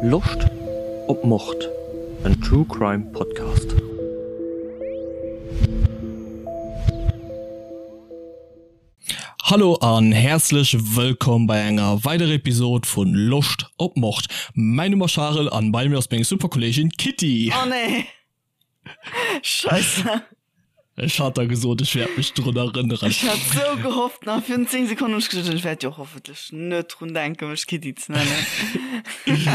Loscht op Mord? En True Crime Podcast. Hallo an häerzlech wëllkomm bei enger weiderer Episode vun Loscht op Mord. Mäin Numm ass Charel an bei mir ass meng super Kolleegin Kitty. Oh nee. Scheisse. Ech hat der gesot, ech wäert mech drun erënneren. Ech hat sou gehofft, nach virun 10 Sekonnen hunn ech geduecht, ech wäert jo hoffentlech net drun denken, mech Kitty ze nennen.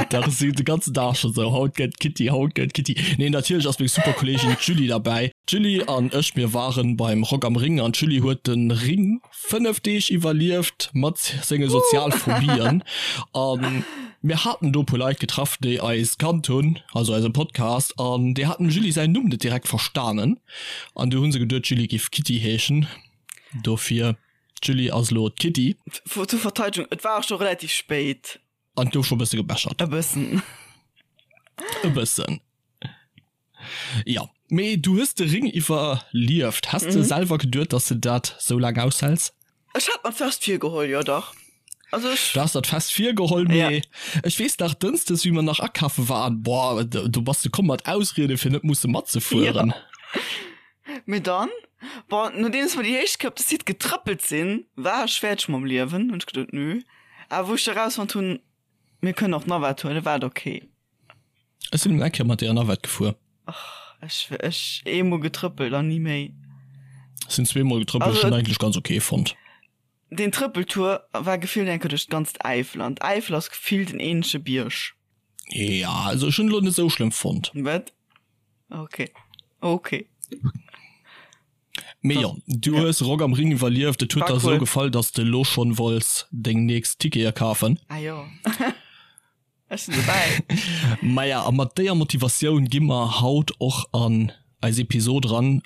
Dach, ech sinn de ganzen Dag scho sou, haut gëtt Kitty, haut gëtt Kitty. Nee, natierlech ass meng super Kolleegin d'Julie derbäi. D'Julie an ech, mir waren beim Rock am Ring an d'Julie huet de Ring 5 Deeg iwwerlieft mat senge Sozialphobien an mir haten do puer Leit getraff déi eis kannt hunn, also eise Podcast, an déi haten dem Julie säin Numm net direkt verstanen an du hunn se geduet d'Julie giff Kitty heeschen, dofir d'Julie ass elo d'Kitty. Zur Verteidegung, et war och scho relativ spéit. An et gouf scho bësse gebechert. E bëssen. E bëssen. Jo, mee du hues de Ring iwwerlieft. Häss de selwer geduet, dass de dat sou laang aushäls? Ech hat mer fest virgeholl, jo dach. Also ech. Du has der fest virgeholl, mee ech weess nach, Dënschdes, wéi mer nach akafe waren, boah, do bass de komm mat Ausriede fir net musse matzefueren. Jo. Mee dann, bon, nodeems mer déi éischt Kéier op de Site getrëppelt sinn, war ech fäerdeg mam Liewen, hunn ech geduet, nö. Awer wou ech da rausfonnt hunn, mir kënnen och d'Navette huelen, war et ok. Ech sinn eng Kéier mat deeër Navette gefuer. Ach, ech, ech eemol getrëppelt an ni méi. Ech sinn zweemol getrëppelt, ech hunn eigentlech ganz ok fonnt. Deen Trëppeltour war gefillt eng Kéier duerch d'ganzt Äifel an d'Äifel ass gefillt en eenzege Bierg. Ja, also ech hunn elo net esou schlëmm fonnt. Wat? Ok, ok. Mee jo, du hues Rock am Ring iwwerlieft, et huet der esou gefall, dass de elo schonn wollts deng nächst Tickete kafen. Ah jo. Ech sinn dobäi. Maja, a mat déier Motivatioun gi mer haut och an eis Episod eran.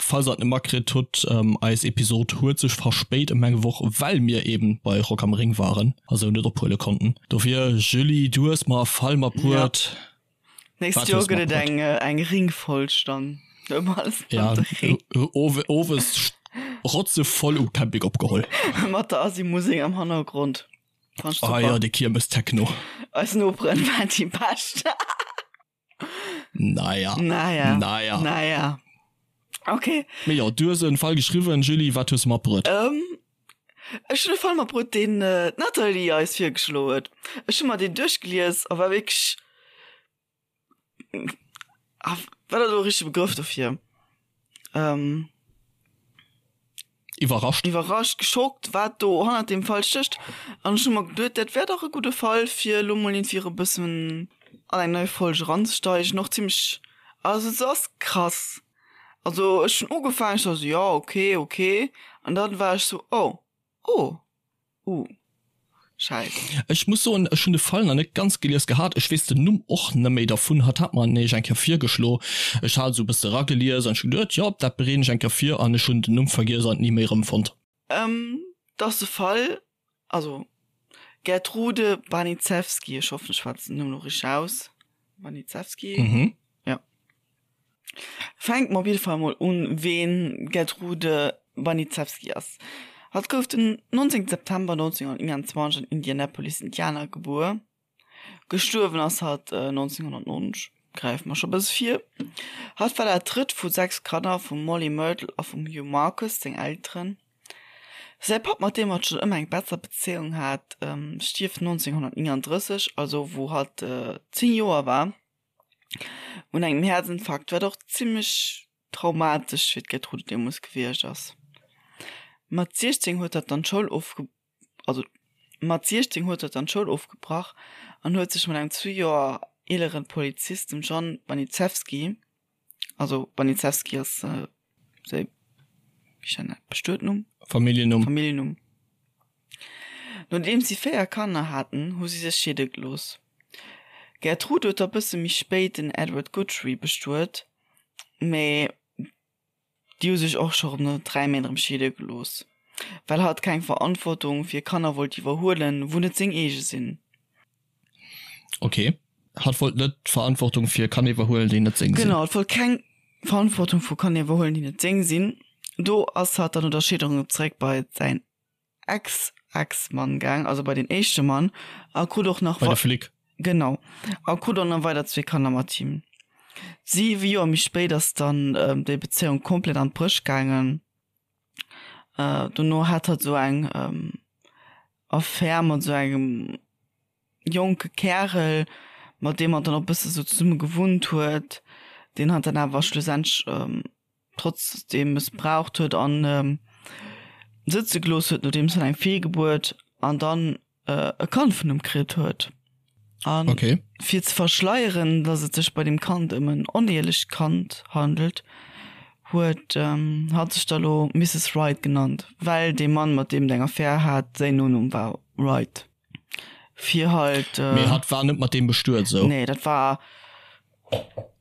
Falls der et net matkritt hutt, eis Episod huet sech verspéit ëm eng Woch, well mir eben bei Rock am Ring waren a sou net ophuele konnten. Dofir, Julie, du hues mer e Fall matbruet. Ja. Nächst Joer gëtt et eng, eng Ringfolg dann. Ja, owes rotzevoll um Camping opgeholl. Mat der Asi-Musek am Hannergrond. Ah ja, de Kiermes Techno. Eis Noperen waren déi bescht. Naja. Naja. Naja. Naja. Okay. Mee jo, du hues en Fall geschriwwen, Julie, wat hues de matbruet? Ähm, ech hunn e Fall matbruet, deen d'Nathalie eis virgeschloen huet. Ech hu mer deen duerchgelies a war wierklech Ah, wat ass elo e richtege Begrëff dofir? Ähm. Iwwerrascht. Iwwerrascht, geschockt, wat do hannert deem Fall stécht. An ech hu mer geduet, dat wär dach e gudde Fall, fir elo mol iergendwéi erëm e bëssen an eng nei Folg eranzesteigen. Och zimmlech, also se ass krass. Also ech hunn ugefaangen, ech war sou, jo, okay, okay. An dann war ech sou, oh, oh. Uh. Scheiss. Ech muss soen, ech hunn de Fall nach net ganz gelies gehat. Ech weess den Numm och net méi dervun. Hatt hat mer en nämlech eng Kéier virgeschlo. Ech hat esou e bësse eragelies an ech hu geduet, jo, dat bereeden ech eng Kéier vir an ech hunn den Numm vergiess an et ni méi erëmfonnt. Ehm, 't ass de Fall, also Gertrude Baniszewski, ech hoffen ech schwätzen den Numm elo richteg aus, Baniszewski? Mhm. Ja. Fänke mer op jidde Fall mol un, ween d'Gertrude Baniszewski ass. Hatt gouf den 19 September 1929 an Indianapolis, Indiana gebuer. Gestuerwen ass hatt 1990, gräife mer scho bësse vir. Hatt war dat drëtt vu 6 Kanner vum Mollie Myrtle a vum Hugh Marcus, seng Elteren. Säi Papp, mat deem hatt schonn ëmmer eng besser Bezéiung hat, stierft 1939, also wou hatt 10 Joer war. Un engem Häerzinfarkt, wat och zimmlech traumatesch fir d'Gertrude deemools gewiescht ass. Mat 16 huet hatt dann d'Schoul ofge also mat 16 huet hatt dann d'Schoul ofgebrach an huet sech mat engem zwee Joer eeleren Polizist, dem John Baniszewski, also Baniszewski ass Säi Bestuetnumm? Familljennumm. Familljennumm. Nodeems si 4 Kanner haten, hu si sech scheede gelooss. D'Gertrude huet da bësse méi spéit den Edward Guthrie bestuet, mä déi hu sech och scho rëm no 3 Méint erëm scheede gelooss, well hatt keng Verantwortung fir Kanner wollt iwwerhuelen, wou net seng eege sinn. Ok, hatt wollt net d'Verantwortung fir Kanner iwwerhuelen, déi net seng sinn. Genau, hatt wollt keng Verantwortung vu Kanner iwwerhuelen, déi net seng sinn. Do ass hatt dann no der Scheederung zeréck bei säin Ex-Ex-Mann gaang, also bei den éischte Mann, a krut och nach. Bei de Flic. Genau. A krut och nach weider zwee Kanner mat him. Siwe Joer méi spéit ass dann déi Bezéiung komplett an d'Bréch gaangen. Dono hat hatt esou eng Affär mat esou engem jonke Kärel, mat deem hatt dann och e bësse sou zesumme gewunnt huet, deen hatt dann awer schlussendlech trotzdeem mëssbraucht huet an sëtze gelooss huet, nodeems hatt eng Feelgebuert an dann e Kand vun em kritt huet. An okay. fir ze verschleieren, dass et sech bei dem Kand ëm en onehielecht Kand handelt, huet ähm, hatt sech da lo Mrs. Wright genannt, well dee Mann, mat deem et eng Affär hat, säin Nonumm war Wright. Fir halt. Äh, Mee hatt war net mat deem bestuet, sou? Nee, dat war.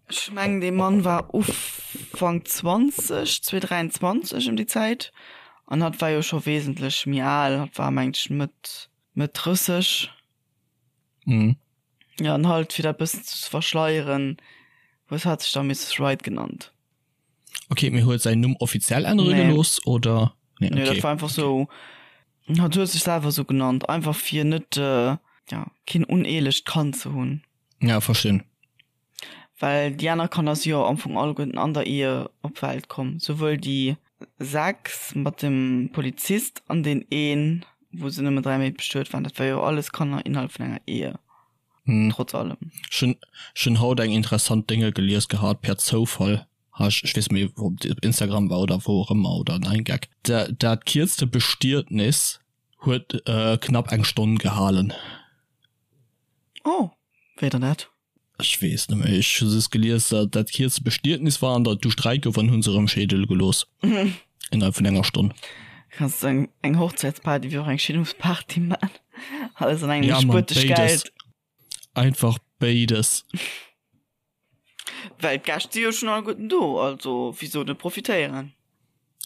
Ech mengen, dee Mann war Ufank 20, 223 ëm déi Zäit. An hatt war jo scho wesentlech méi al, hatt war, mengt ech, Mëtt, Mëtt 30. Mhm. Ja, an halt, fir dat bëssen ze verschleieren, huet hatt sech da Mrs. Wright genannt. Okay, mee huet säin Numm offiziell ännere Nee. gelooss, oder? Nee, nee, dat war einfach sou, hatt huet sech selwer sou genannt, einfach fir net, ja, keen uneelecht Kand ze hunn. Ja, verstinn. Well déi aner Kanner si jo am Fong alleguerten an der Ehe op d'Welt komm, souwuel déi 6 mat dem Polizist an deen een, wou se nëmmen 3 Méint bestuet waren. Dat war jo alles Kanner innerhalb vun enger Ehe, trotz allem. Ech hunn, ech hunn haut eng interessant Dénge gelies gehat, per Zoufall, ha ech, ech weess méi, ob et op Instagram war oder wou och ëmmer, oder 9gag. Dat kierzte Bestietnis huet knapp eng Stonn gehalen. Oh, wéi dann dat? Ech weess net méi, ech hu just gelies, datt dat kierzte Bestietnis war an datt du Sträit gouf an hunn se erëm scheede gelooss. Innerhalb vun enger Stonn. Kanns du eng, eng Hochzäitsparty wéi och eng Scheedungsparty man. Alles an engem Ja, Mann, spuert dech béides. Geld. Einfach béides. Well d'Gäscht si jo schonn alleguerten do, also wisou net profitéieren?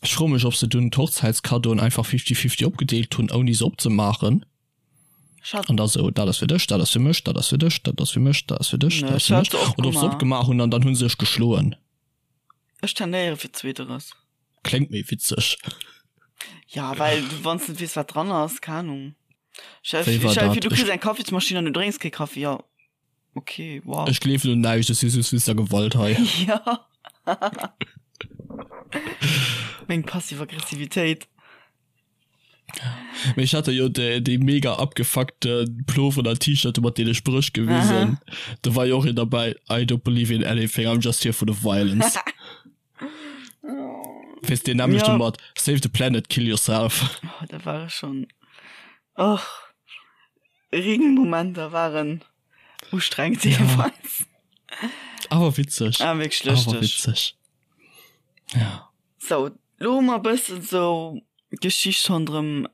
Ech froe mech, ob se dunn d'Hochzäitskaddoen einfach fifty-fifty opgedeelt hunn, ouni se opzemaachen. An da sou, dat ass fir dech, dat ass fir mech, dat ass fir dech, dat ass fir mech, dat ass fir dech, dat ass fir mech. Oder ob se opgemaach hunn an dann hu se sech geschloen. Ech tendéiere fir zweeteres. Kléngt méi witzeg. Ja, well du, wann s net weess, wat dran ass, keng Ahnung. Stell Wéi war dir vir, dat? du kriss eng Kaffismaschinn an du drénks kee Kaffi, jo. Okay, wow. Ech gleewen un näischt, ech si just wéinst der Gewalt hei. Ja. Meng passiv Aggressivitéit. Mee ech hat der jo déi, déi mega abgefuckte Pullover oder T-Shirt mat deene Spréch gewisen. Do war jo och een derbäi, I don't believe in anything, I'm just here for the violence. Weess deen nämlechte Ja. mat Save the planet, kill yourself. Oh, da war ech schon. Och. Ring-Momenter waren ustrengend jeweils. Awer witzeg. Ah, wierklech Awer lëschteg. witzeg. Ja. Sou, lo hu mer e bëssen sou d'Geschicht ronderëm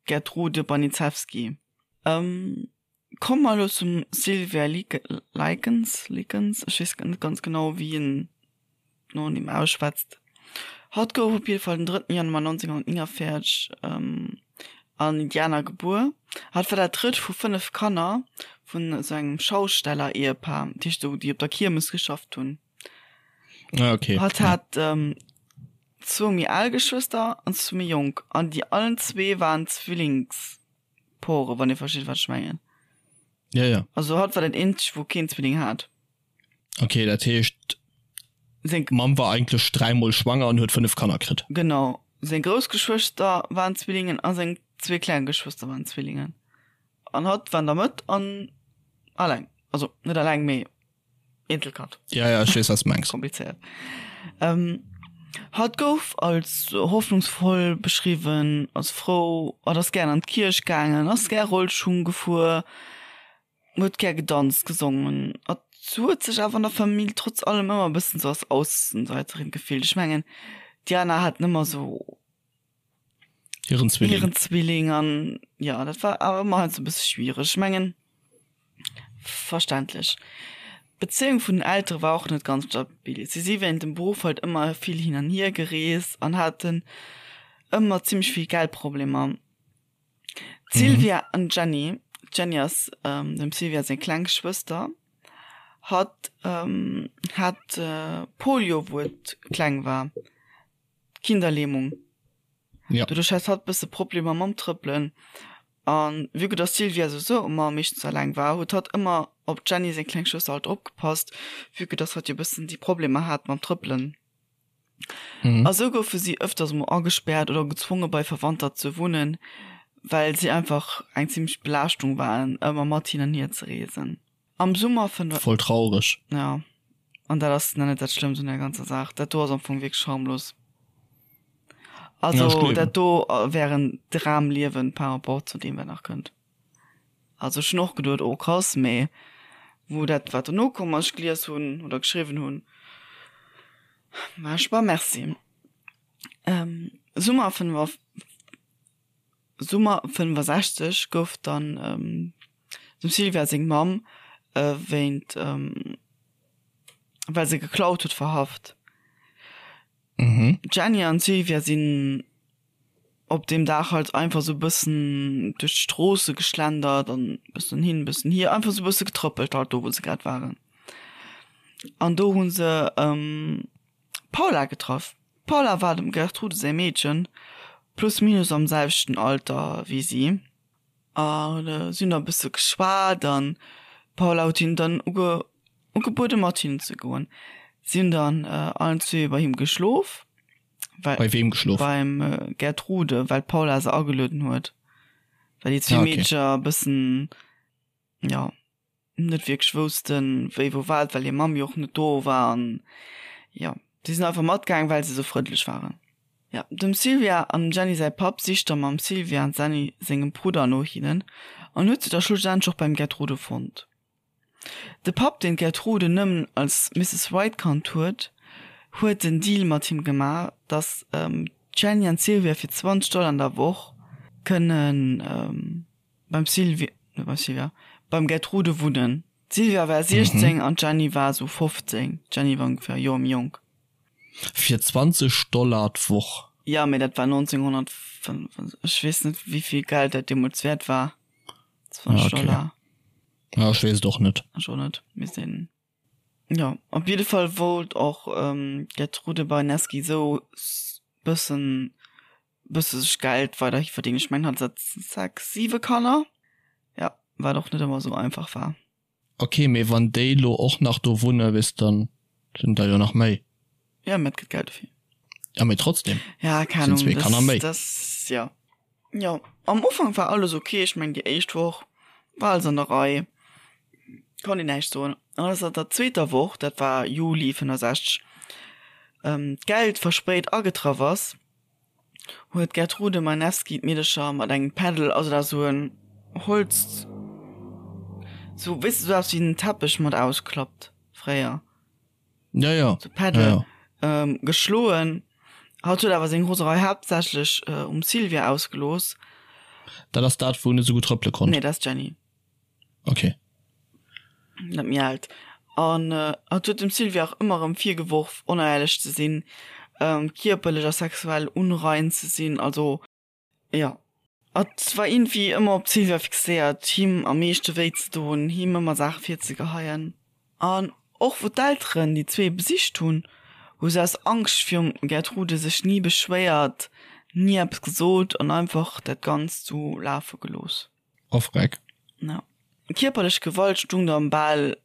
Gertrude Baniszewski. Komme mer elo zum Sylvia Likens, Likens, ech weess net ganz genau wéi een Nonumm ausschwätzt. Hatt gouf op jidde Fall den drëtten Januar 1949 an Indiana gebuer. Hatt war dat drëtt vu 5 Kanner vun esou engem Schausteller-Ehepaar, dat heescht esou déi op der Kiermes geschafft hunn. Ah, okay. Hatt hat ähm, zwou méi al Geschwëster an zwou méi jonk. An déi allen zwee waren Zwillingspore, wann Dir versteet, wat ech mengen. Ja, ja. Also hatt war den eenzege, wou keen Zwilling hat. Okay, dat heescht, Seng, d'Mamm war eigentlech dräimol schwanger an huet 5 Kanner kritt. genau, seng grouss Geschwëster waren Zwillingen a seng zwee kleng Geschwëster waren Zwillingen. An hatt war an der Mëtt an alleng. Also net alleng, mee Eenzelkand. Ja, ja, ech weess, wat s mengs. Komplizéiert. Ähm, hatt gouf als hoffnungsvoll beschriwwen, als frou, hatt ass gären an d'Kierch gaangen, ass gär Rollschung gefuer, huet gär gedanzt, gesongen. Hatt huet sech awer an der Famill trotz allem ëmmer e bëssen sou als Aussenseiterin gefillt. Ech mengen, d'Diana hat ëmmer sou Hiren Zwilling. Hiren Zwilling an ja, dat war awer ëmmer heiansdo e bësse schwiereg. Ech mengen, verständlech. D'Bezéiung vun den Eltere war och net ganz stabil. Si si wéinst dem Beruff halt ëmmer vill hin an hier gereest an haten ëmmer zimmlech vill Geldproblemer. D'Sylvia an d'Jenny, d'Jenny ass dem Sylvia seng kleng Schwëster, hatt hat Polio wou et kleng war. Kinderlähmung. Ja. Doduerch hat hatt bësse Problemer mam Trëppelen. An vue que dass d'Sylvia souwisou ëmmer meeschtens alleng war, huet hatt ëmmer op d'Jenny seng kleng Schwëster halt opgepasst, vue que dass hatt jo bëssen déi Problemer hat mam Trëppelen. A sou goufe si ëfters mol agespäert oder gezwonge bei Verwandter ze wunnen, well si einfach eng zimmlech Belaaschtung waren, ëmmer mat hin an hier ze reesen. Am Summer 5. Voll traureg. Ja, an dat ass nach net dat Schlëmmst un der ganzer Saach. Dat do ass am Fong wierklech harmlos. Also dat do wär en Dramliewen par rapport zu deem wat nach kënnt. Also ech hunn och geduet, oh krass, mee wou dat wat dono komm ass, ech gelies hunn oder geschriwwen hunn, war ech bah merci. Summer 5. Summer 65 gouf dann dem Sylvia seng Mamm wéint well se geklaut huet verhaft. D'Jenny an d'Sylvia sinn op deem Dag halt einfach sou bëssen duerch d'Stroosse geschlendert an bëssen hin bëssen hier, einfach sou bësse getrëppelt halt do wou se grad waren. An do hu se d'Paula getraff. D'Paula war dem Gertrude säi Meedchen, plus minus am selwechten Alter wéi si. A si hunn da e bësse geschwat an d'Paula huet hinnen dann uge ugebuede mat hinnen ze goen. Si hunn dann allen zwee bei him geschlof. Well, bei weem geschlof? Beim Gertrude, well d'Paula se agelueden huet. Well déi zwee ah, okay. Meedcher e bëssen, jo. net wierklech woussten, wéi wou wat, well hir Mamm jo och net do war an jo, si sinn einfach matgaang, well se sou frëndlech waren. Jo, dem Sylvia an dem Jenny säi Papp sicht da mam Sylvia an Jenny sengem Brudder no hinnen an huet se da schlussendlech och beim Gertrude fonnt. De Papp, deen d'Gertrude nëmmen als Misses White kannt huet, huet den Deal mat him gemaach, dass d'Jenny an d'Sylvia fir 20 Dollar an der Woch kënnen beim Sylvie, net beim Sylvia, beim Gertrude wunnen. D'Sylvia war 16 mhm. an d'Jenny war sou 15. D'Jenny war ongefähr e Joer méi jonk. Fir 20 Dollar d'Woch? Ja, mee dat war 1905, ech weess net wéivill Geld dat deemools wäert war. 20 ah, okay. Dollar. Ja, ech weess et och net. Ech och net, misst een. Jo, op jidde Fall wollt och d'Gertrude Baniewski sou bëssen bësse sech Geld weiderhi verdéngen. Ech mengen hatt hat 6, 7 Kanner, jo, wat och net ëmmer esou einfach war. Ok, mee wann déi lo och nach do wunne, weess dann sinn der jo nach méi. Jo, mee et gëtt Geld dofir. Ja, mee trotzdem. Ja, keng Ahnung, sinn zwee Kanner méi. Das, jo. Jo, am Ufank war alles ok, ech mengen déi éischt Woch war alles an der Rei, konnt een näischt soen. An ass an der zweeter Woch, dat war Juli 65, d'Geld verspéit agetraff ass, huet d'Gertrude Meinewski d'Meedercher mat engem Paddle, also dat ass esou en Holz, sou weess de, sou eppes wéi en Teppech mat ausklappt fréier, Ja, ja. sou Paddle, ja, ja. Ähm, geschloen. Hatt huet awer seng Roserei haaptsächlech um Sylvia ausgelooss. Dat ass dat, wou net esou gutt trëppele konnt? Nee, dat ass d'Jenny. Ok. Net méi alt. An hatt huet dem Sylvia och ëmmer erëm virgeworf, onéierlech ze sinn, kierperlech a sexuell unrein ze sinn. Also, jo, hatt war iergendwéi ëmmer op d'Sylvia fixéiert, him am meeschte wéi ze doen, him ëmmer Saache virzegeheien. An och wou d'Elteren déi zwee besicht hunn, hu se aus Angscht virum Gertrude sech ni beschwéiert, ni eppes gesot an einfach dat Ganzt sou lafe gelooss. Ofreck. Ja. Kierperlech Gewalt stung dann bal,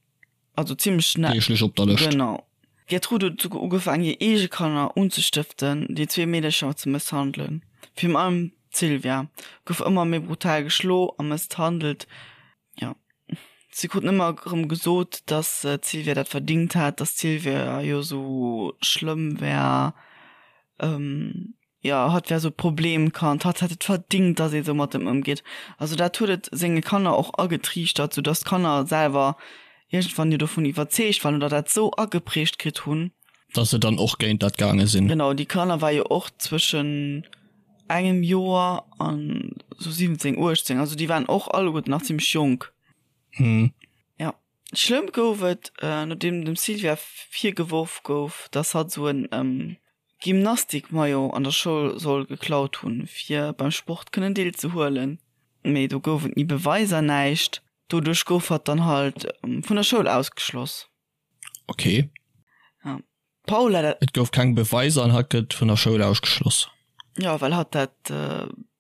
also zimmlech schnell. Deeglech op der Lëscht. Genau. D'Gertrude huet souguer ugefaangen, hir eege Kanner unzestëften, déi zwee Meedercher ze mësshandelen. Virun allem d'Sylvia gouf ëmmer méi brutal geschlo a mësshandelt. Jo. Si krut ëmmer erëm gesot, dass d'Sylvia dat verdingt hätt, dass d'Sylvia jo esou schlëmm wär. Jo, hatt wär esou e Problemkand, hatt hätt et verdingt, datt ee sou mat em ëmgeet. Also dat huet et senge Kanner och agetriichtert, sou datt d'Kanner selwer iergendwann jo dovun iwwerzeegt waren oder dat sou ageprägt kritt hunn. Datt se dann och géint dat gaange sinn. Genau, déi Kanner war jo och zwëschen engem Joer an sou 17, 18, also déi waren och alleguerten nach zimmlech jonk. Jo, schlëmm gouf et, nodeem dem Sylvia virgeworf gouf, datt hatt sou en Gymnastik-Maillot an der Schoul soll geklaut hunn, fir beim Sport kënnen deelzehuelen. Mee do gouf et ni Beweiser, näischt. Doduerch gouf hatt dann halt vun der Schoul ausgeschloss. Ok. Ja. D'Paula dat. Et gouf keng Beweiser an hatt gëtt vun der Schoul ausgeschloss. Jo, well hatt dat.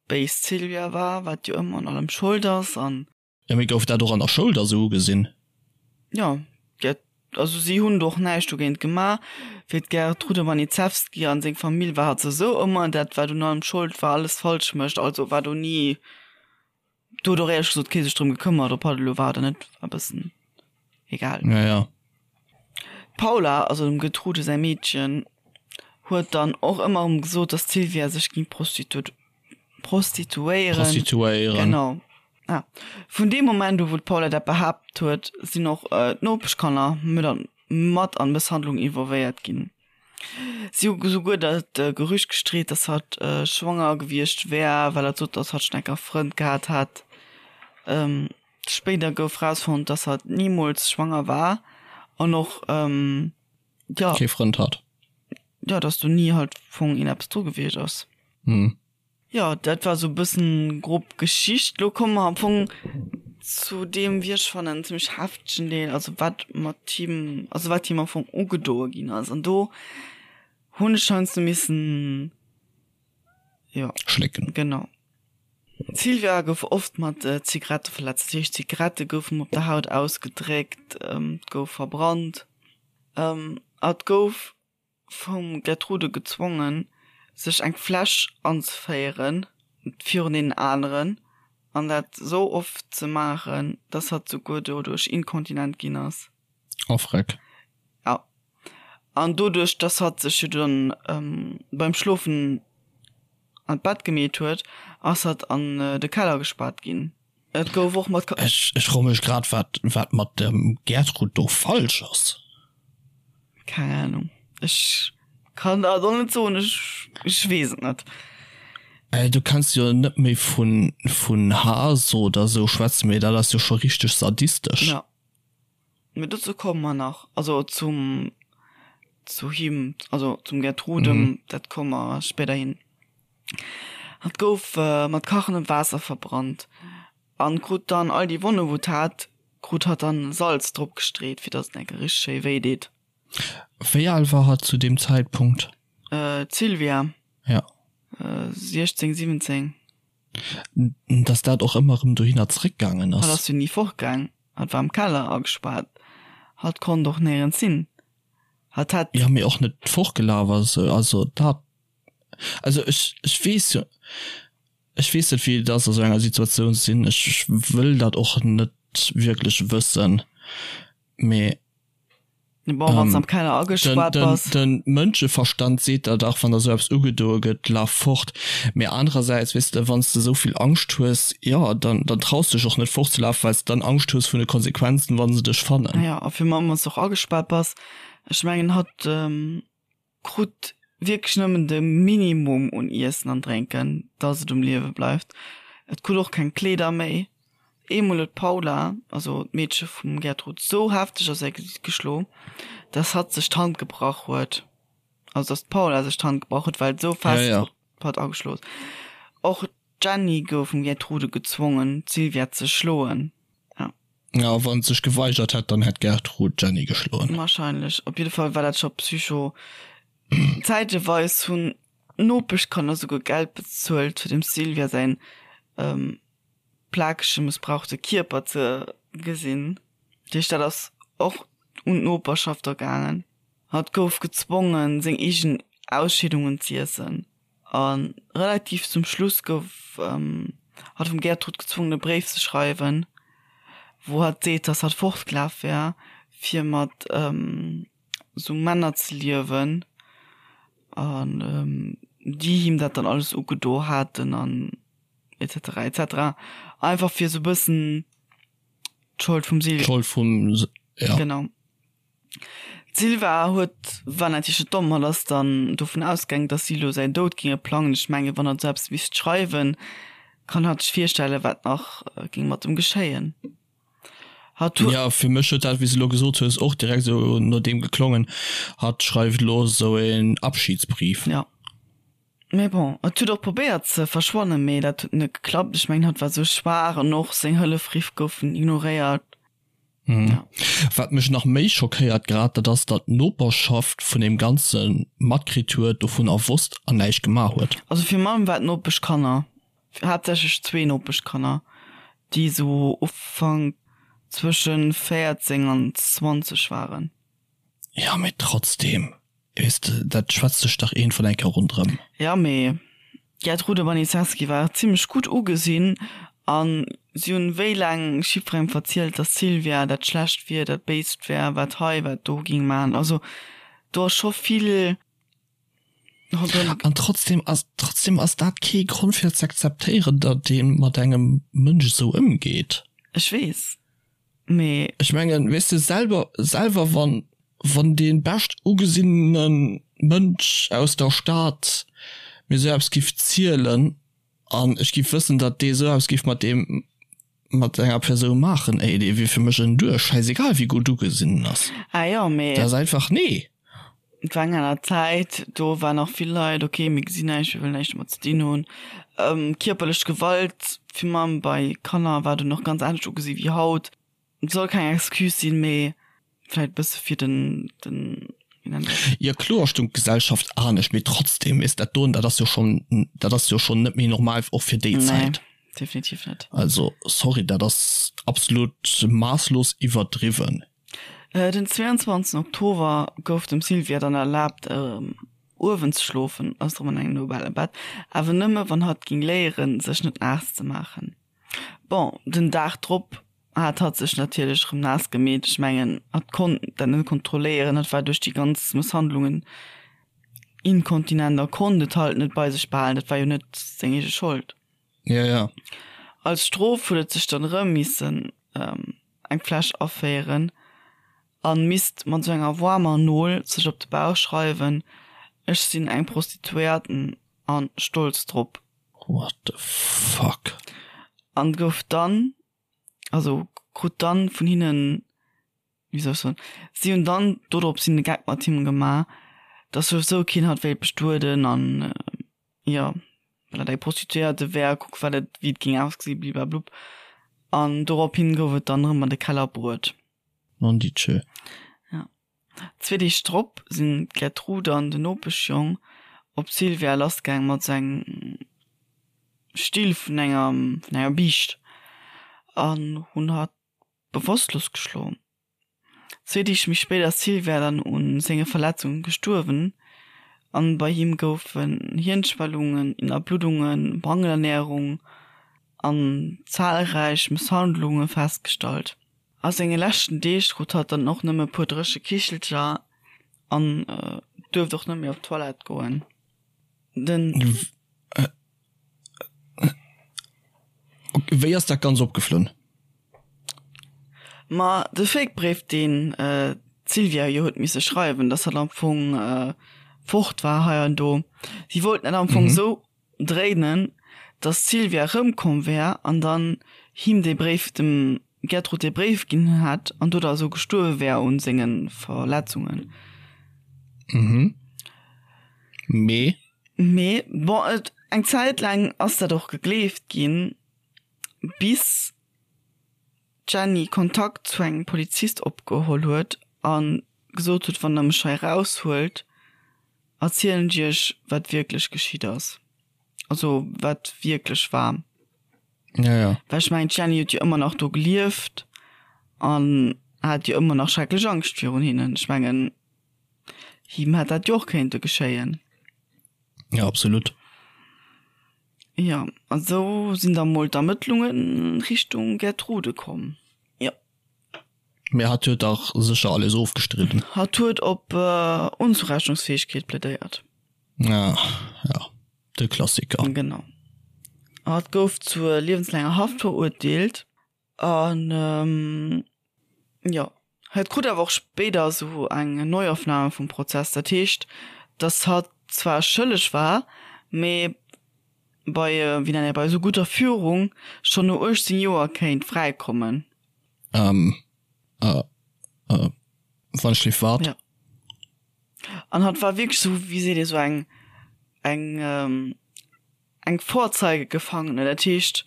Béis d'Sylvia war, wat jo ëmmer un allem Schold ass an. Jo, mee gouf dat och an der Schoul da sou ugesinn? Jo, dat, also si hunn do och näischt dogéint gemaach. Fir d'Gertrude Baniszewski an seng Famill war hatt souwisou ëmmer dat, wat un allem Schold war, alles falsch mécht. Also war do ni, do huet och éierlech gesot kee sech drëm gekëmmert, ob hatt elo war oder net, war e bëssen egal. Ja, ja. D'Paula, also dem Gertrude säi Meedchen, huet dann och ëmmer erëm gesot, dass d'Sylvia sech géing prostituéieren. Prostituéieren. Genau. Ah. Vun deem Moment u wou d'Paula dat behaapt huet, sinn och d'Nopeschkanner mat an d'Mësshandlung involvéiert ginn. Si hu souguer dat Gerücht gestreet, dass hatt schwanger gewiescht wär, well hatt sot, dass hatt schonn enker e Frënd gehat hätt. Spéider gouf rausfonnt, dass hatt nimools schwanger war an och, jo. Kee Frënd hat. Jo, dass do ni halt vun een eppes dru gewiescht ass. Hm. Jo, dat war sou e bëssen grob Geschicht. Lo komme mer am Fong zu deem, wéi ech fannen, zimmlech heftegen Deel, also wat mat him, also wat him am Fong ugedoe ginn ass. An do hunn ech heiansdo missen, jo. Schlécken. Genau. D'Sylvia gouf oft mat Zigarette verletzt, dat heescht Zigarette goufen op der Haut ausgedréckt, et gouf verbrannt a et gouf vum Gertrude gezwongen, sech eng Fläsch anzeféieren virun deenen aneren an dat sou oft ze maachen, dass hatt souguer doduerch inkontinent ginn ass. Oh freck. Ja. An doduerch, dass hatt sech jo dann beim Schlofen an d'Bett gemeet huet, ass hatt an de Keller gespaart ginn. Et gouf och mat. Ech ech froe mech grad wat wat mat dem Gertrud do falsch ass. Keng Ahnung, ech kann der et och net soen, ech ech weess et net. Äh du kanns jo net méi vun vun Haass oder sou schwätzen, mee dat ass jo scho richteg sadistesch. Ja. Mee dozou komme mer nach, also zum, zu him, also zum Gertrude, mhm. dat komme mer spéiderhin. Hatt gouf äh, mat kachendem Waasser verbrannt an krut dann all déi Wonne wou hat, krut hatt dann Salz drop gestreet, fir datt et enke richteg schéi wéi deet. Wéi al war hatt zu deem Zäitpunkt? Äh, d'Sylvia? Ja. Äh, 16, 17. Dass dat och ëmmer erëm dohinner zréckgaangen ass. Hatt ass jo ni fortgaang. Hatt war am Keller agespaart. Hatt konnt och néierens hin. Hatt hätt. Jo, mee och net fortgelaf ass. Also dat, also ech, ech weess jo, ech weess net wéi et ass a sou enger Situatioun ze sinn. Ech wëll dat och net wierklech wëssen, mee. Bon, wann s am Keller agespaart bass. Den Mënscheverstand seet der dach, wann der sou eppes ugedoe gëtt, laf fort. Mee anerersäits, weess de, wann s de sou vill Angscht hues, jo, dann, dann traus de dech och net fortzelafen, well s de dann Angscht hues vun de Konsequenzen, wa se dech fannen. Jo, a virun allem, wann s de och agespaart bass. Ech mengen, hatt. Krut wierklech nëmmen de Minimum un Iessen an Drénken, dass et um Liewe bleift. Et krut och keng Kleeder méi. Eemol huet d'Paula, also d'Meedche vum Gertrud, sou hefteg a säi Gesiit geschlo, dass hatt sech d'Hand gebrach huet. Also dass d'Paula sech d'Hand gebrach huet, well et sou fest op hatt ageschlo huet. Och d'Jenny gouf vum Gertrude gezwongen, d'Sylvia ze schloen. Ja, wann sech geweigert hätt, dann hätt d'Gertrud d'Jenny geschloen. Wahrscheinlech. Op jidde Fall war dat scho psycho. Zäiteweis hunn d'Nopeschkanner souguer Geld bezuelt, fir dem Sylvia säin plakege, mëssbrauchte Kierper ze gesinn. Dat heescht, dat ass och un d'Noperschaft da gaangen. Hatt gouf gezwongen, seng eegen Ausscheedungen z'iessen. A relativ zum Schluss gouf hatt vum Gertrud gezwongen e Bréif ze schreiwen, wou hatt seet, dass hatt fortgelaf wär, fir mat sou Männer ze liewen an déi him dat dann alles ugedo haten an et cetera et cetera. Einfach fir sou bëssen d'Schold vum Sil. D'Schold vum, ja. Genau. D'Sylva huet, war natierlech net domm, hatt ass dann dovun ausgaangen, dass si elo säin Doud géinge plangen. Ech mengen, wann hatt esou eppes misst schreiwen, kann hatt sech virstellen, wat nach géing mat em geschéien. Hatt huet. Jo, fir mech huet dat, wéi s de elo gesot hues, och direkt esou no deem geklongen, hatt schreift elo esou een Abschiedsbrief. Jo. Mee bon, et huet och probéiert ze verschwannen, mee dat huet net geklappt. Ech mengen, hatt war esou schwaach an och seng Hëllefriff goufen ignoréiert. Mhm. Wat mech nach méi schockéiert grad, dat ass, datt d'Noperschaft vun deem Ganze matkritt huet, dovunner wosst an näischt gemaach huet. Also virun allem war d'Nopeschkanner. Haaptsächlech zwee Nopeschkanner, déi sou Ufank zwëschen 14 an 20 waren. Jo, mee trotzdem, weess de, dat schwätzt sech dach iergendwann eng Kéier ronderëm. Jo, mee d'Gertrude Baniszewski war zimlech gutt ugesinn an si hunn wéi laang jiddwerengem verzielt, dass d'Sylvia dat Schlecht wier, dat Béist wär, wat hei, wat do ging maachen. Also do ass scho vill ronderëm. An trotzdem ass, trotzdem ass dat kee Grond fir ze akzeptéieren, datt ee mat engem Mënsch esou ëmgeet. Ech weess, mee. Ech mengen, weess de, selwer, selwer wann, wann dee bescht ugesinnene Mënsch aus der Stad mir esou eppes giff zielen an ech giff wëssen, datt dee esou eppes giff mat deem, mat enger Persoun maachen, ey, dee wier fir mech en Duerch, schäisegal wéi gutt ugesinn en ass. Ah jo, mee. Dat ass einfach, nee. Et war eng aner Zäit, do waren nach vill Leit, ok, mir gesinn näischt, mir wëllen näischt domat ze dinn hunn. Kierperlech Gewalt, virun allem bei Kanner, war dunn och ganz anescht ugesi wéi haut. Et soll keng Excuse sinn, mee vläit e bësse fir den, den, wéi nennt een dat? Jo kloer stung d'Gesellschaft anescht, mee trotzdem is dat doen, dat ass jo schon, dat ass jo schon net méi normal och fir déi Zäit. Nee, definitiv net. Also sorry, dat ass absolut maasslos iwwerdriwwen. Den 22 Oktober gouf dem Sylvia dann erlaabt erëm uewen ze schlofen, ass erëm an engem nobele Bett, awer nëmme wann hatt ging léieren sech net naass ze maachen. Bon, den Dag drop hat hatt sech natierlech erëm naass gemeet. Ech mengen, hatt konnt dat net kontrolléieren, hatt war duerch déi ganz Mësshandlungen inkontinent a konnt et halt net bei sech behalen. Dat war jo net seng eege Schold. Ja, ja. Als Strof huet et sech dann erëm missen eng Fläsch aféieren an misst mat sou enger waarmer Nol sech op de Bauch schreiwen, Ech sinn eng Prostituéierten an stolz drop. What the fuck? An gouf dann, also krut dann vun hinnen, wéi soll ech soen, si hunn dann dodrops hin de Geck mat him gemaach, dass souwisou keen hatt wéilt bestueden an jo, well dat eng Prostituéierte wär, kuck wat et, wéi et géing ausgesinn, bliblablub. An dorophin gouf et dann erëm an de Keller bruet. Nonditschö. Ja. Zwee Deeg drop sinn d'Gertrude an den Nopeschjong op d'Sylvia lassgaang mat sou engem Still vun enger vun enger Biischt an hunn hatt bewosstlos geschloen. Zwee Deeg méi spéit ass d'Sylvia dann u senge Verletzunge gestuerwen an bei him goufen Hirnschwellungen, Innerbluddungen, Mangelernärung an zahlräich Mësshandlunge festgestallt. A senge leschten Deeg krut hatt dann och nëmme puer dréche Kichelcher an duerft och net méi op d'Toilette goen. Den. Wéi ass dat ganz opgeflunn? Ma de Fake-Bréif, deen d'Sylvia jo huet misse schreiwen, dass hatt am Fong fort war hei an do. Si wollten dat am Fong esou dréinen, dass d'Sylvia erëmkomm wär an dann him dee Bréif, dem Gertrud dee Bréif ginn hätt an do da esou gestuerwe wär un senge Verletzungen. Mhm. Mee? Mee, bon, et, eng Zäit laang ass dat och gegleeft ginn, bis d'Jenny Kontakt zu engem Polizist opgeholl huet a gesot huet, wann der mech hei eraushuelt, erzielen ech iech, wat wierklech geschitt ass, also wat wierklech war. Ja, ja. Well ech mengen, d'Jenny huet jo ëmmer nach do gelieft an hat jo ëmmer nach schrecklech Angscht virun hinnen. Ech mengen, him hätt dat jo och kéinte geschéien. Ja, absolut. Jo, an esou sinn da mol d'Ermëttlunge Richtung Gertrude komm. Jo. Mee hatt huet dach sécher alles ofgestridden. Hatt huet op Onzurechnungsfäegkeet plädéiert. Ah, ja, de Klassiker. Genau. Hatt gouf zur liewenslaanger Haft verurteelt. An jo, hatt krut awer och spéider esou eng Neuaufnahme vum Prozess. Dat heescht, datt hatt zwar schëlleg war, mee bei, wéi nennt een, bei esou gutter Führung schonn no 18 Joer kéint fräikommen. Ähm, äh, äh, wann ech lief wat? Ja. An hatt war wierklech esou, wéi seet ee, esou eng, eng, eng Vorzeigegefangene, dat heescht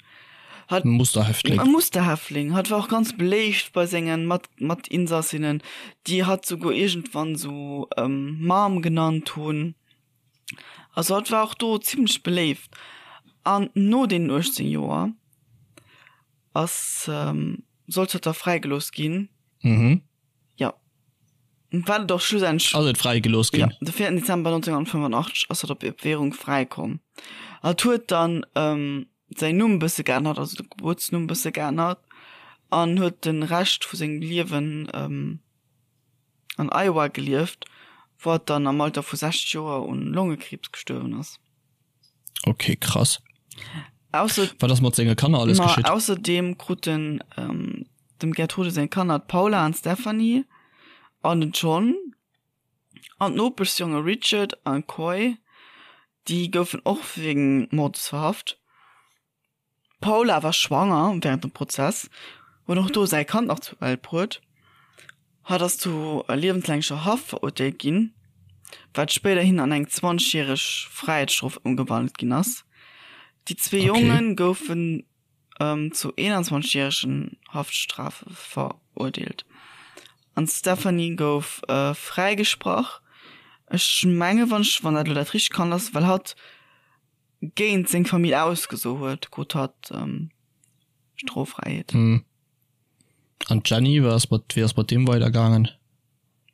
hatt. E Musterhäftling. E Musterhäftling. Hatt war och ganz beléift bei senge Mat, Matinsassinnen, déi hatt souguer iergendwann esou Mom genannt hunn. Also hatt war och do zimlech beléift. An no deenen 18 Joer ass, sollt hatt da fräigelooss ginn. Mhm. Jo. Wat et och schlussendlech. Ass et fräigelooss ginn? Jo, de 4 Dezember 1985 ass hatt op Bewährung fräikomm. Hatt huet dann säin Numm bësse geännert, also de Gebuertsnumm bësse geännert an huet de Rescht vu sengem Liewen an Iowa gelieft, wou hatt dann am Alter vu 60 Joer un Longekriibs gestuerwen ass. Ok, krass. Ausser Wat ass mat senge Kanner alles Ma geschitt? ausserdeem kruten dem Gertrude seng Kanner d'Paula an d'Stephanie an den John an d'Nopeschsjonge Richard an Coy, déi goufen och wéinst Mordes verhaft. D'Paula war schwanger wärend dem Prozess, huet och do säi Kand nach zur Welt bruet. Hatt ass zu liewenslängeger Haft verurteelt ginn, wat spéiderhin an eng 20 järeg Fräiheetsstrof ëmgewandelt ginn ass. Déi zwee Jonge goufen zu 21 järegen Haftstrafe verurteelt an d'Stephanie gouf fräigesprach. Ech menge wann ech wann dat elo dat richtegt Kand ass, well hatt géint seng Famill ausgeso huet, krut hatt Stroffräiheet. An d'Jenny, wat ass mat, wéi ass mat deem weidergaangen?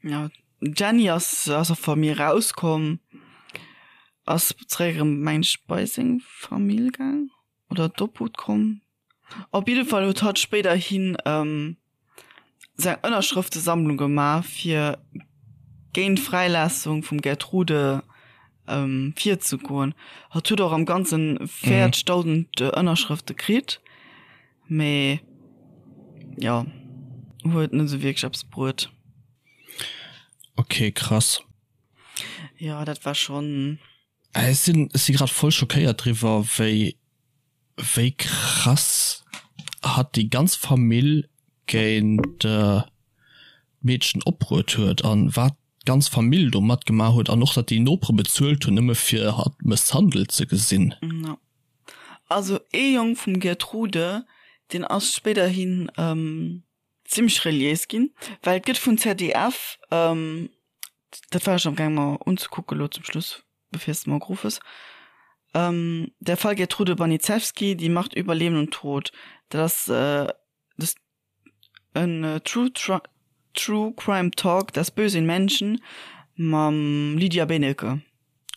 Ja, d'Jenny ass aus der Famill rauskomm, ass zeréck erëm, meng ech, bei seng Famill gaang oder d'Obhut komm. Op jidde Fall huet hatt spéiderhin seng Ënnerschrëftesammlung gemaach, fir géint d'Fräilaassung vum Gertrude virzegoen. Hatt huet och am Ganzen 40.000 Ënnerschrëfte kritt, mee jo, huet net esou wierklech eppes bruet. Ok, krass. Jo, dat war schonn. Ech sinn, ech si grad voll schockéiert driwwer, wéi wéi krass hatt déi ganz Famill géint d'Meedchen opbruet huet an wat d'ganz Famill do matgemaach huet an och datt déi Nopere bezuelt hunn nëmme fir hatt mësshandelt ze gesinn. Jo. Also ee Jong vum Gertrude, deen ass spéiderhin zimmlech reliéis ginn, well et gëtt vun ZDF, dat war ech am gaang mer unzekucken elo zum Schluss, bevir s de mer geruff hues, Der Fall Gertrude Baniszewski, Die Macht über Leben und Tod, dat ass des en True True Crime Talk, Das Böse in Menschen mam Lydia Benecke.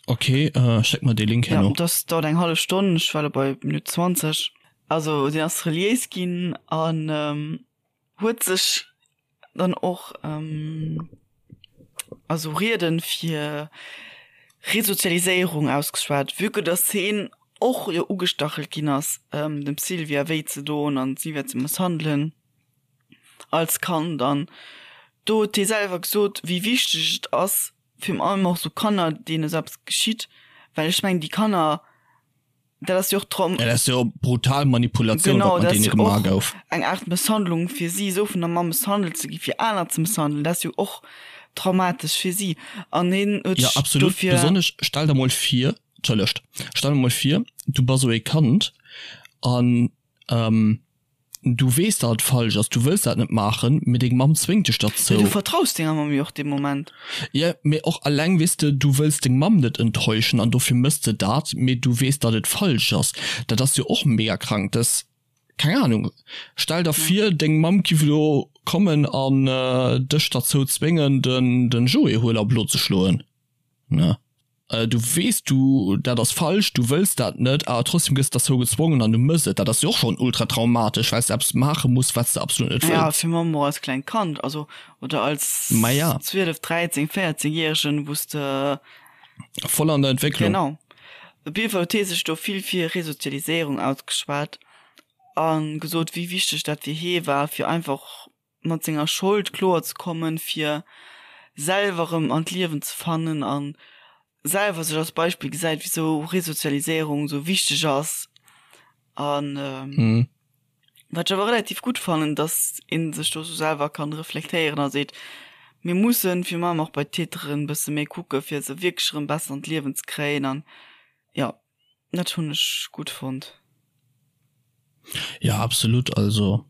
Ok, schéck mer dee Link herno. Ja, dat dauert eng hallef Stonn, ech war elo bei Minutt 20. Also deen ass reliéis ginn an huet sech dann och also Rieden fir Resozialiséierung ausgeschwat, vue que dass heen och jo ugestachelt ginn ass dem Sylvia wéi ze doen an d'Sylvia ze mësshandelen als Kand an do huet hie selwer gesot wéi wichteg et ass virun allem och sou Kanner deene sou eppes geschitt, well ech mengen déi Kanner Dat ass jo och Traum. Dat ass jo brutal Manipulatioun, wat mat deene gemaach gouf. Eng Aart Mësshandlung fir si, esou vun der Mamm mësshandelt ze gi fir aner ze mësshandelen, dat ass jo och traumatesch fir si. An hien huet sech dofir. Jo, absolut. Besonnesch, stell der mol vir, entschëllegt, stell der mol vir, du bass esou ee Kand an Du weess, datt et falsch ass, du wëlls dat net maachen, mee deng Mamm zwéngt dech derzou. Mee du vertraus denger Mamm jo och dee Moment. Jo, mee och alleng, weess de, du wëlls deng Mamm net enttäuschen an dofir mëss de dat, mee du weess, datt et falsch ass. Dat ass jo och mega krank. Dat, keng Ahnung, stell der vir, deng Mamm giff elo kommen an dech derzou zwéngen, den Joé huel a blo ze schloen, ne? Du weess, du, dat ass falsch, du wëlls dat net, awer trotzdem gëss derzou gezwongen an du mëss et. Dat ass jo och schonn ultra traumatesch, well s de eppes maache muss, wat s de absolut net Ja, wëlls. fir Mamm och als klengt Kand, also oder als Ma ja. 12, 13, 14 Järegen, wou s de. Voll an der Entwécklung. Genau. Op jidde Fall huet hie sech do vill fir Resozialiséierung ausgeschwat a gesot, wéi wichteg dat fir hie war, fir einfach mat senger Schold kloer ze kommen, fir selwer erëm an d'Liewen ze fannen an selwer sech als Beispill gesäit, wisou Resozialiséierung esou wichteg ass. An wat ech awer relativ gutt fannen, datt ee sech do esou selwer kann reflektéieren a seet, mir mussen virun allem och bei d'Täteren e bësse méi kucke fir se wierklech erëm besser an d'Liewen ze kréien an jo. Dat hunn ech gutt fonnt. Ja absolut, also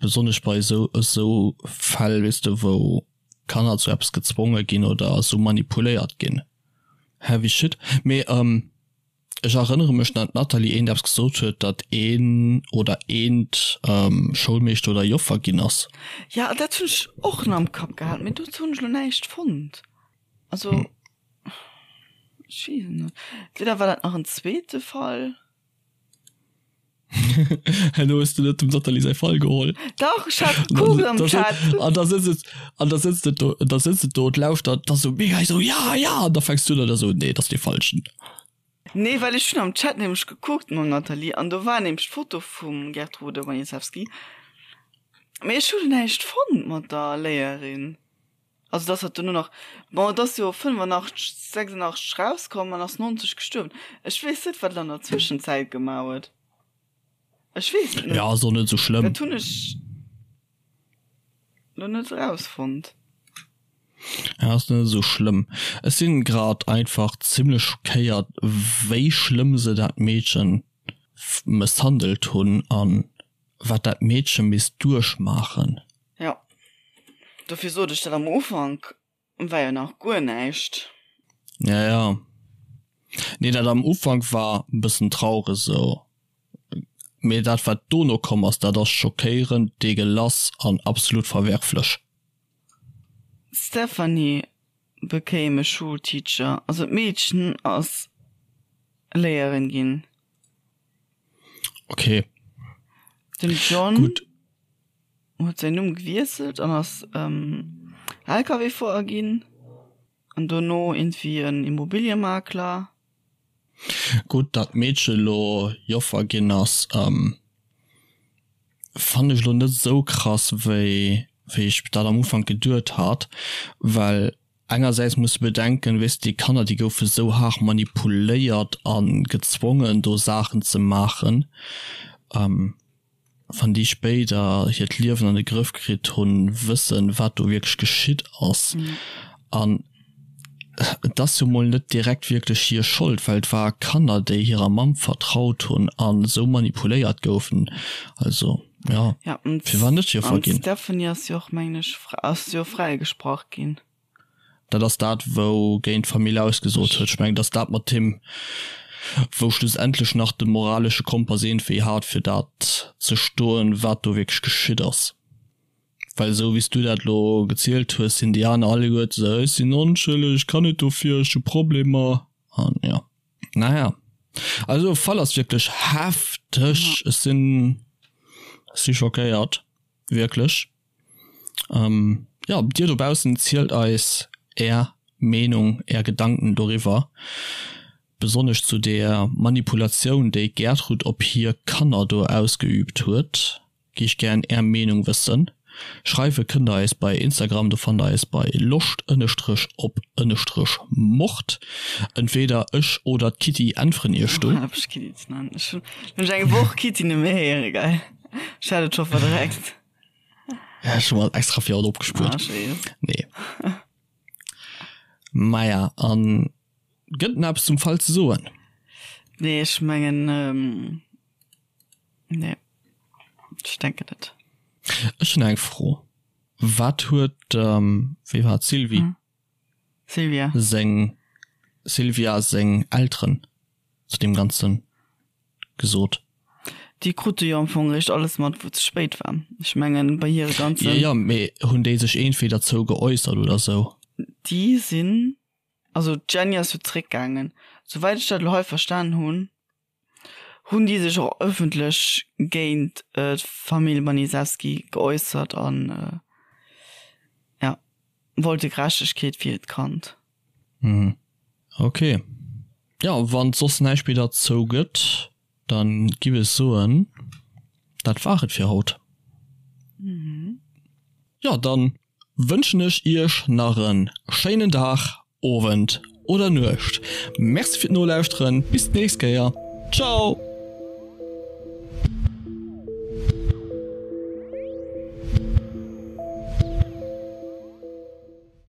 besonnesch bei esou esou Fäll weess de wou Kanner zu eppes gezwonge ginn oder esou manipuléiert ginn. Heavy shit. Mee. Ech erënnere mech, datt d'Nathalie eent eppes gesot huet, datt een oder eent Schoulmeeschter oder Joffer ginn ass. Ja, dat hunn ech och nach am Kapp gehat, mee dozou hunn ech elo näischt fonnt. Also, ech weess et net. Entweder war dat nach en zweete Fall. Herno hues du net dem Nathalie säi Fall geholl. Dach, ech hat gekuckt am Chat. An da sëtzt et, an da sëtzt et do, da sëtzt et do und lauschtert, da sou mega sou ja, ja, an da fänks du un an da sou nee, dat ass dee falschen. Nee, well ech hunn am Chat nämlech gekuckt mam Nathalie an do war nämlech d'Foto vum Gertrude Baniszewski. Mee ech hu näischt fonnt mat der Léierin. Also dass hatt dono nach, bon et ass jo 85, 86 rauskomm an ass 90 gestuerwen. Ech weess net wat en an der Zwëschenzäit gemaach huet. Ech weess et net. Ja ass och net esou schlëmm. Dat hunn ech lo net erausfonnt. Ja ass net esou schlëmm. Ech sinn grad einfach zimlech schockéiert wéi schlëmm se dat Meedchen mësshandelt hunn an wat dat Meedche misst duerchmaachen. Jo, dofir sot ech dat am Ufank war jo nach guer näischt. Ja, ja. Nee, dat am Ufank war e bëssen traureg esou, mee dat wat dono komm ass, dat ass schockéierend, deegelass an absolut verwerflech. D'Stephanie became a schoolteacher, also d'Meedchen ass Léierin ginn. Okay. Den John Gut. huet säin Numm gewiesselt an ass ähm, LKW-Fuerer ginn an dono irgendwie en Immobiliemakler. Gutt, datt d'Meedche lo Joffer ginn ass, ähm, fannen ech lo net esou krass, wéi wéi ech dat am Ufank geduet hat, well Engersäits muss de bedenken, weess de, déi Kanner, déi goufe sou haart manipuléiert a gezwongen, do Saachen ze maachen. Wann déi spéider hiert Liewen an de Grëff kritt hunn, wëssen, wat do wierklech geschitt ass. An et ass jo mol net direkt wierklech hir Schold, well et war Kanner, déi hirer Mamm vertraut hunn a sou manipuléiert goufen. Also, jo, firwat net Joffer ginn? An d'Stephanie ass jo och, mengen ech, ass jo fräigesprach ginn. Dat ass dat, wou géint d'Famill ausgesot huet. Ech mengen, et ass dat mat him, wou schlussendlech nach de moralesche Kompass iergendwéi hat, fir dat ze stoen, wat do wierklech geschitt ass. Well esou wéi s du dat elo gezielt hues, sinn déi aner alleguerte esou, ech sinn onschëlleg, ech kann net dofir, ech hu Problemer an jo. Naja, also Fall ass wierklech hefteg. Ech sinn, ech si schockéiert, wierklech. Ähm, ja, dir dobaussen zielt eis är Meenung, är Gedanken doriwwer, besonnesch zu der Manipulatioun, déi d'Gertrud op hir Kanner do ausgeübt huet, gi ech gären är Meenung wëssen. Schreiwe kënnt der eis bei Instagram, do fannt der eis bei loscht ënnestrech op ënnestrech mord. Entweder ech oder d'Kitty äntweren iech do. Hal op mech Kitty ze nennen, ech hunn mech eng Woch Kitty net méi héiere, geil, ech hat et scho verdreckt. Ja, schon mal extra fir haut opgespuert. Ah, schön. Nee. Maja, an gëtt nach eppes zum Fall ze soen? Nee, ech mengen, ähm, nee. Ech denken net. Ech hunn eng Fro. Wat huet, ähm, wéi war et, d'Sylvie? Hm. Sylvia. Seng, Sylvia seng Elteren zu deem Ganzen gesot? Déi krute jo am Fong eréischt alles mat, wou et ze spéit war. Ech mengen, bei hire ganzen. Jo, jo, mee hunn déi sech iergendwéi derzou geäussert oder sou? Déi sinn, also d'Jenny ass jo zréckgaangen. Souwäit ech dat elo hei verstanen hunn, hunn déi sech och ëffentlech géint d'Famill Baniszewski geäussert an, jo, wollte Gerechtegkeet fir hiert Kand. Mhm. Ok. Jo, wann et soss näischt méi derzou gëtt, dann giff ech soen, dat war et fir haut. Jo, dann wënschen ech iech nach en schéinen Dag, Owend oder Nuecht. Merci fir d'Nolauschteren, bis d'nächst Kéier. Ciao!